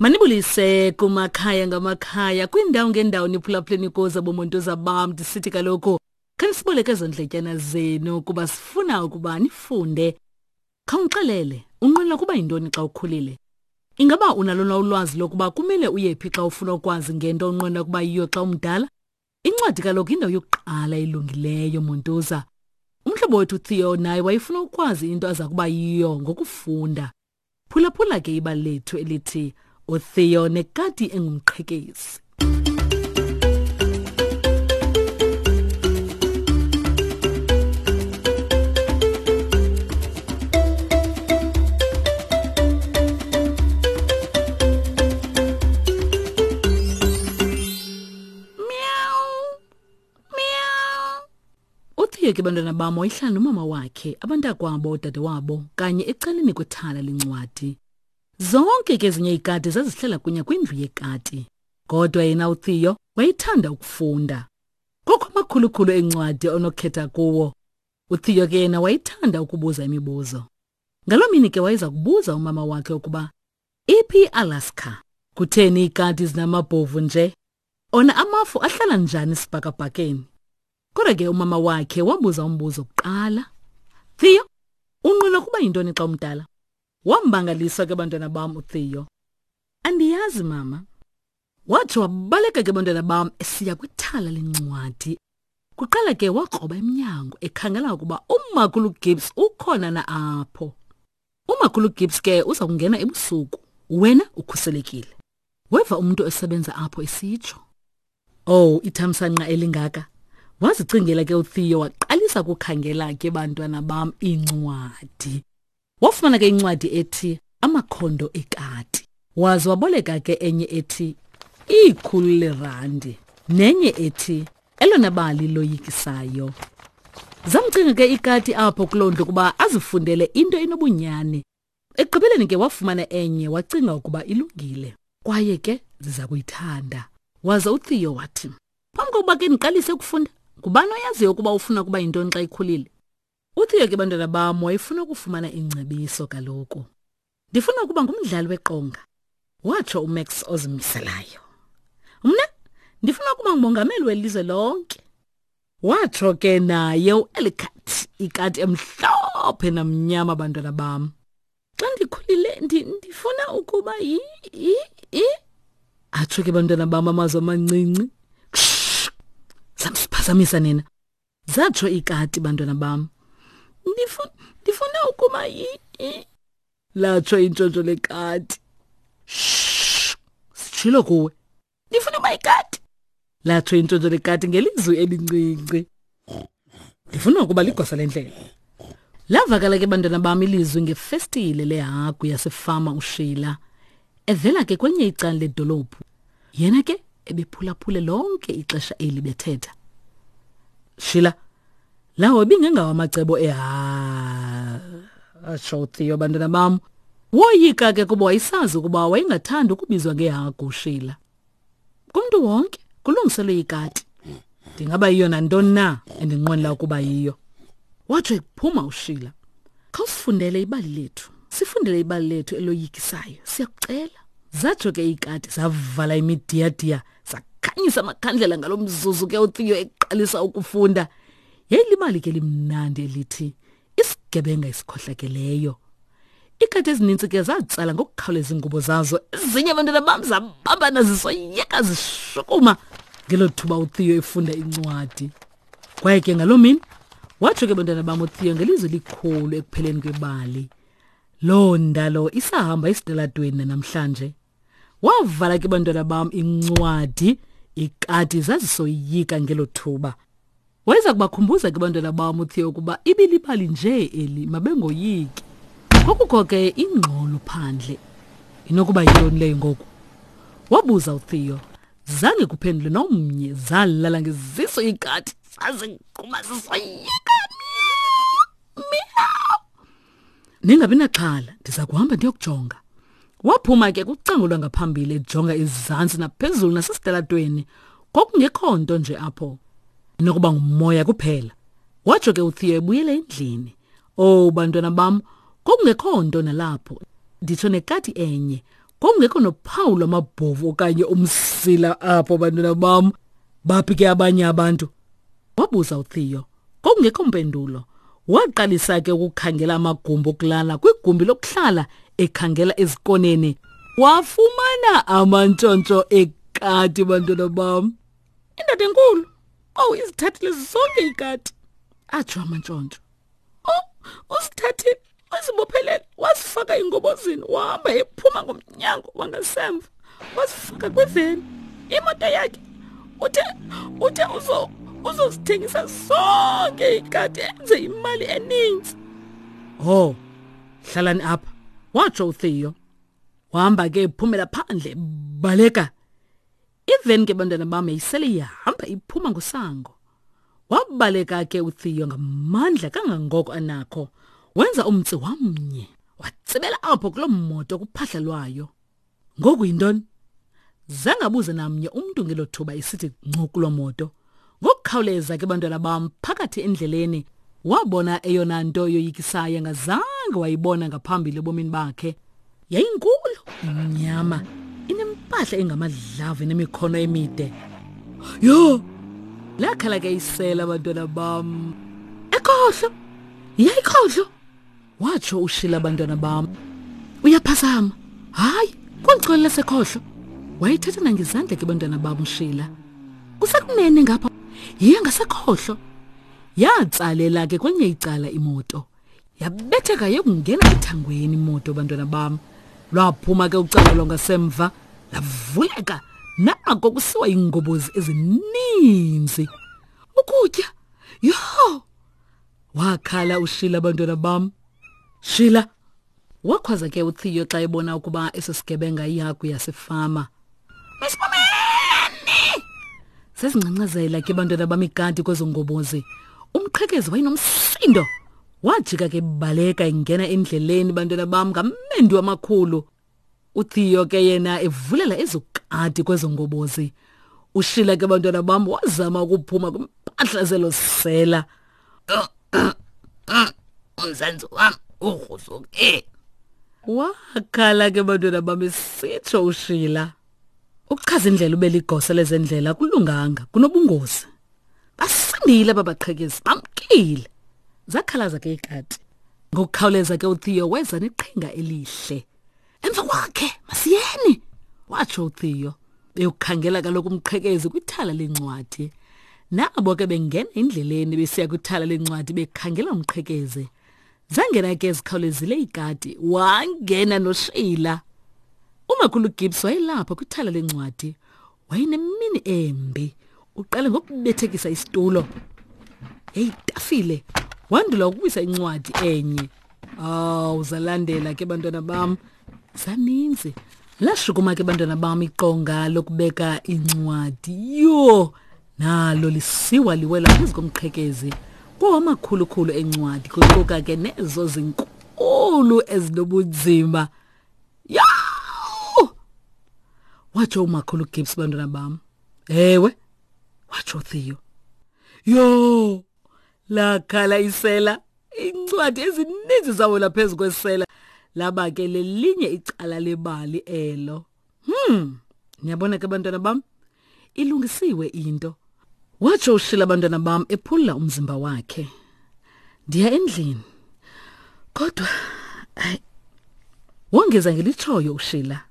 Manibulise kumakhaya ngamakhaya kwiindawo ngeendawo niphulaphuleni kuzo bomontuza bam ndisithi kaloku khanisiboleke ezo ndletyana zenu kuba sifuna ukuba nifunde. Khawundixelele, unqwenela ukuba yintoni xa ukhulile? Ingaba unalo na ulwazi lokuba kumele uye phi xa ufuna ukwazi ngento onqwenela ukuba yiyo xa umdala? Incwadi kaloku yindawo yokuqala elungileyo, Montuza. Umhlobo wethu uTheo naye wayefuna ukwazi into aza kuba yiyo ngokufunda. Phulaphula ke ibali lethu elithi uTheo nekati engumqhekezi. Uthiye ke bantwana bam wayehlala nomama wakhe, abantakwabo, odadewabo kanye ecaleni kwethala lencwadi. Zonke ke ezinye iikati zazihlala kunye kwindlu yekati. Kodwa yena uTheo wayethanda ukufunda. Kukho amakhulukhulu eencwadi onokhetha kuwo. UTheo ke yena wayethanda ukubuza imibuzo. Ngaloo mini ke wayeza kubuza umama wakhe ukuba iphi iAlaska? Kutheni iikati zinamabhovu nje? Ona amafu ahlala njani esibhakabhakeni? Kodwa ke umama wakhe wabuza umbuzo kuqala. Theo, unqwena kuba yintoni xa umdala? Wambangalisa ke bantwana bam uTheo. Andiyazi mama. Watsho wabaleka ke bantwana bam esiya kwithala lencwadi. Kuqala ke wakroba emnyango ekhangela ukuba uMakhulu Gibbs ukhona na apho. Umakhulu Gibbs ke uza kungena ebusuku. Wena ukhuselekile. Weva umuntu esebenza apho esitsho. Oh, ithamsanqa elingaka. Wazicingela ke uTheo waqalisa ukukhangela ke bantwana bam iincwadi. Wafumana ke incwadi ethi Amakhondo Ekati. Waze waboleka ke enye ethi Ikhulu Lerandi nenye ethi Elona Bali Loyikisayo. Zamcinga ke ikati apho kuloo ndlu ukuba azifundele into enobunyani. Ekugqibeleni ke wafumana enye wacinga ukuba ilungile kwaye ke ziza kuyithanda. Waze uTheo wathi, Phambi kokuba ke ndiqalise ukufunda, ngubani oyaziyo ukuba ufuna ukuba yintoni xa ikhulile? UTheo ke bantwana bam wayefuna ukufumana ingcebiso kaloku. Ndifuna ukuba ngumdlali weqonga, watsho uMax ozimiselayo. Mna ndifuna ukuba ngumongameli welizwe lonke. Watsho ke naye uElicat, ikati emhlophe namnyama bantwana bam. Xa ndikhulile ndifuna ukuba yi yi yi atsho ke bantwana bam amazwi amancinci. Samsiphazamisa nina. Zatsho ikati bantwana bam. Ndifuna ndifuna ukuba yi latsho intshontsho lekati. Shh! Sitshilo kuwe. Ndifuna uba ikati. Latsho intshontsho lekati ngelizwi elincinci. Ndifuna ukuba ligosa lendlela. Lavakala ke bantwana bam ilizwi ngefestile lehagu yasefama uShila. Evela ke kwenye icala ledolophu. Yena ke ebephulaphule lonke ixesha eli bethetha. Sheila, lawo ibingengawo amacebo eha atsho uTheo bantwana bam. Woyika ke kuba wayesazi ukuba wayengathandi ukubizwa ngehagu uSheila. Kumntu wonke kulungiselwe ikati. Ndingaba yiyo nantoni na endinqwenela ukuba yiyo. Watsho ephuma uSheila. Khawusifundele ibali lethu. Sifundele ibali lethu eloyikisayo. Siyakucela. Zatsho ke iikati zavala imidiyadiya zakhanyisa amakhandlela ngalo mzuzu ke uTheo eqalisa ukufunda. Yayilibali ke limnandi elithi isigebenga esikhohlakeleyo. Iikati ezininzi ke zatsala ngokukhawuleza iingubo zazo. Ezinye abantwana bam zabambana zisoyeka zishukuma ngelo thuba uTheo efunda incwadi. Kwaye ke ngaloo mini watsho ke bantwana bam uTheo ngelizwi likhulu ekupheleni kwebali. Loo ndalo isahamba esitalatweni namhlanje. Wavala ke bantwana bam incwadi ikati zazisoyika ngelo thuba. Wayeza kubakhumbuza ke bantwana bam uTheo ukuba ibilibali nje eli mabengoyiki. Kwakukho ke ingxolo phandle. Inokuba yintoni leyo ngoku? Wabuza uTheo. Zange kuphendule nomnye zalala ngeziso ikati zazigquma zisoyika. Meow. Ningabi naxhala, ndiza kuhamba ndiyokujonga. Waphuma ke kucango lwangaphambili ejonga izantsi naphezulu nasesitalatweni. Kwakungekho nto nje apho. Inokuba ngumoya kuphela. Watsho ke uTheo ebuyela endlini. Oh bantwana bam, kwakungekho nto nalapho. Nditsho nekati enye. Kwakungekho nophawu lwamabhovu okanye umsila apho, bantwana bam. Baphi ke abanye abantu? Wabuza uTheo. Kwakungekho mpendulo. Waqalisa ke ukukhangela amagumbi okulala kwigumbi lokuhlala ekhangela ezikoneni. Wafumana amantshontsho ekati, bantwana bam. Indoda enkulu, owu, izithathile zonke iikati, atsho amantshontsho. Oh, usithathile, wazibophelela, wazifaka engobozini, wahamba ephuma ngomnyango wangasemva, wazifaka kwiveni. Imoto yakhe uthe uthe uzo uzozithengisa zonke ikati enze imali eninzi. Oh, hlalani apha, watsho uTheo. Wahamba ke ephumela phandle, baleka. Iveni ke bantwana bam yayisele ihamba iphuma ngosango. Wabaleka ke uTheo ngamandla kangangoko anakho. Wenza umtsi wamnye, watsibela apho kuloo moto kuphahla lwayo. Ngoku yintoni? Zange abuze namnye umntu ngelo thuba isithi ngcu kuloo moto. Ngokukhawuleza ke bantwana bam phakathi endleleni wabona eyona nto yoyikisayo angazange wayibona ngaphambili ebomini bakhe. Yayinkulu, imnyama, inempahla engamadlavu enemikhono emide. Yho! Lakhala ke isela abantwana bam. Ekhohlo! Yayikhohlo! Watsho uShila abantwana bam. Uyaphazama. Hayi, kweli lasekhohlo. Wayethetha nangezandla ke bantwana bam uShila. Kusekunene ngapha. Yiya ngasekhohlo. Yatsalela ke kwenye icala imoto. Yabetheka yokungena ethangweni imoto bantwana bam. Lwaphuma ke ucala lwangasemva lavuleka nako kusiwa iingobozi ezininzi. Ukutya. Yho! Wakhala uShila bantwana bam. Shila! Wakhwaza ke uTheo xa ebona ukuba eso sigebenga ihagu yasefama. Masibomeni! Zazingcangcazela ke bantwana bam ikati kwezo ngobozi. Umqhekezi wayenomsindo. Wajika ke baleka ingena endleleni bantwana bam ngamendu amakhulu. uTheo ke yena evulela ezokati kwezo ngobozi. Ushila ke bantwana bam wazama ukuphuma kwimpahla zelo sela. Umzantsi wam ugruzuke. Wakhala ke bantwana bam esitsho uShila. Ukuchaza indlela ube ligosa lezendlela kulunganga kunobungozi. Basindile babaqhekezi bamkile. Zakhalaza ke ikati. Ngokukhawuleza ke uTheo weza neqhinga elihle. Emva kwakhe masiyeni, watsho uTheo. Beyokukhangela kaloku umqhekezi kwithala leencwadi. Nabo ke bengena endleleni besiya kwithala leencwadi bekhangela umqhekezi. Zangena ke zikhawulezile iikati, wangena noSheila. Umakhulu Gibbs wayelapha kwithala leencwadi. Wayenemini embi. Uqale ngokubethekisa isitulo. Yayitafile. Wandula ukuwisa incwadi enye. Awu, zalandela ke bantwana bam. Zaninzi. Lashukuma ke bantwana bam iqonga lokubeka incwadi. Yho! Nalo lisiwa liwela phezu komqhekezi. Kwawamakhulukhulu encwadi kuquka ke nezo zinkulu ezinobunzima. Yho! Watsho umakhulu Gibbs bantwana bam. Ewe, watsho Theo. Yho! Lakhala isela. Iincwadi ezininzi zawela phezu kwesela. Laba ke lelinye icala lebali elo. Niyabona ke bantwana bam, ilungisiwe into. Watsho uShila abantwana bam ephula umzimba wakhe. Ndiya endlini. Kodwa hayi wongeza ngelitshoyo uShila.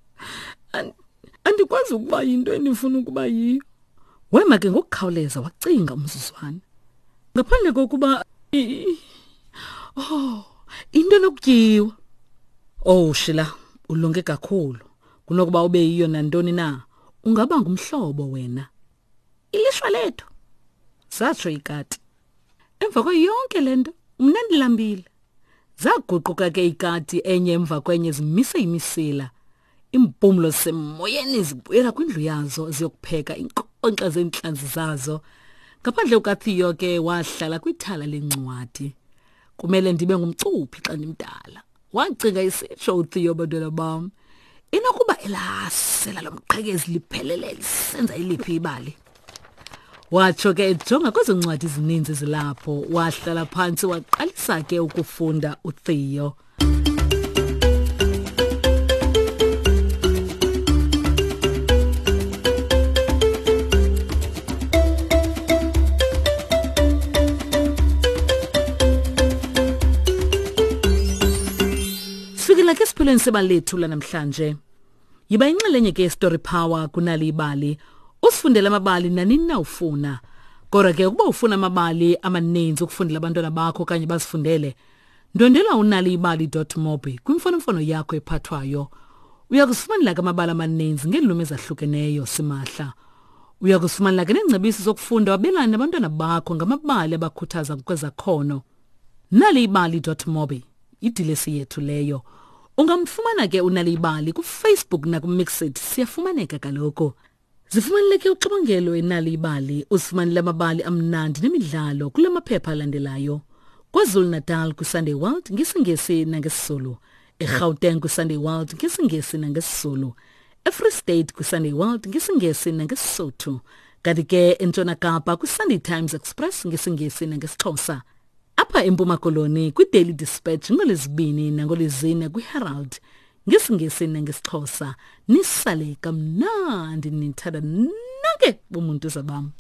Andikwazi ukuba yinto endifuna ukuba yiyo. Wema ke ngokukhawuleza wacinga umzuzwana. Ngaphandle kokuba oh, into enokutyiwa. Oh Shila, ulunge kakhulu. Kunokuba ube yiyo nantoni na, ungaba ngumhlobo wena. Ilishwa lethu, satsho ikati. Emva kwayo yonke le nto, mna ndilambile. Zaguquka ke ikati enye emva kwenye zimise imisila. Iimpumlo zisemoyeni zibuyela kwindlu yazo ziyokupheka iinkonkxa zeentlanzi zazo. Ngaphandle kukaTheo ke wahlala kwithala lencwadi. Kumele ndibe ngumcuphi xa ndimdala. Wacinga isitsho uTheo bantwana bam. Inokuba elasela lomqhekezi liphelele lisenza iliphi ibali. Watsho ke ejonga kwezo ncwadi zininzi zilapho, wahlala phantsi waqalisa ke ukufunda uTheo. Sisesiphelweni sebali lethu lanamhlanje. Yiba inxalenye ke Story Power kunali ibali. Usifundele amabali nanini na ufuna. Kodwa ke ukuba ufuna amabali amaninzi ukufundela abantwana bakho okanye bazifundele, ndwendwela unaliibali.mobi kwimfonomfono yakho ephathwayo. Uya kuzifumanela ke amabali amaninzi ngeelwimi ezahlukeneyo simahla. Uya kuzifumanela ke neengcebiso zokufunda wabelane nabantwana bakho ngamabali abakhuthaza ngokwezakhono. Naliibali.mobi idilesi yethu leyo. Ungamfumana ke uNalibali kuFacebook nakuMixit siyafumaneka kaloku. Zifumaneleke uxibongelo eNalibali uzifumanele amabali amnandi nemidlalo kula maphepha alandelayo. KwaZulu-Natal kwiSunday World ngesiNgesi nangesiZulu. eGauteng kwiSunday World ngesiNgesi nangesiZulu. eFree State kwiSunday World ngesiNgesi nangeSisotho. Kanti ke eNtshona Kapa kwiSunday Times Express ngesiNgesi nangesiXhosa. Apha eMpuma Koloni kwiDaily Dispatch ngolwezibini nangolwezine kwiHerald ngesiNgesi nangesiXhosa. Nisale kamnandi nithanda nonke bomuntu zabam.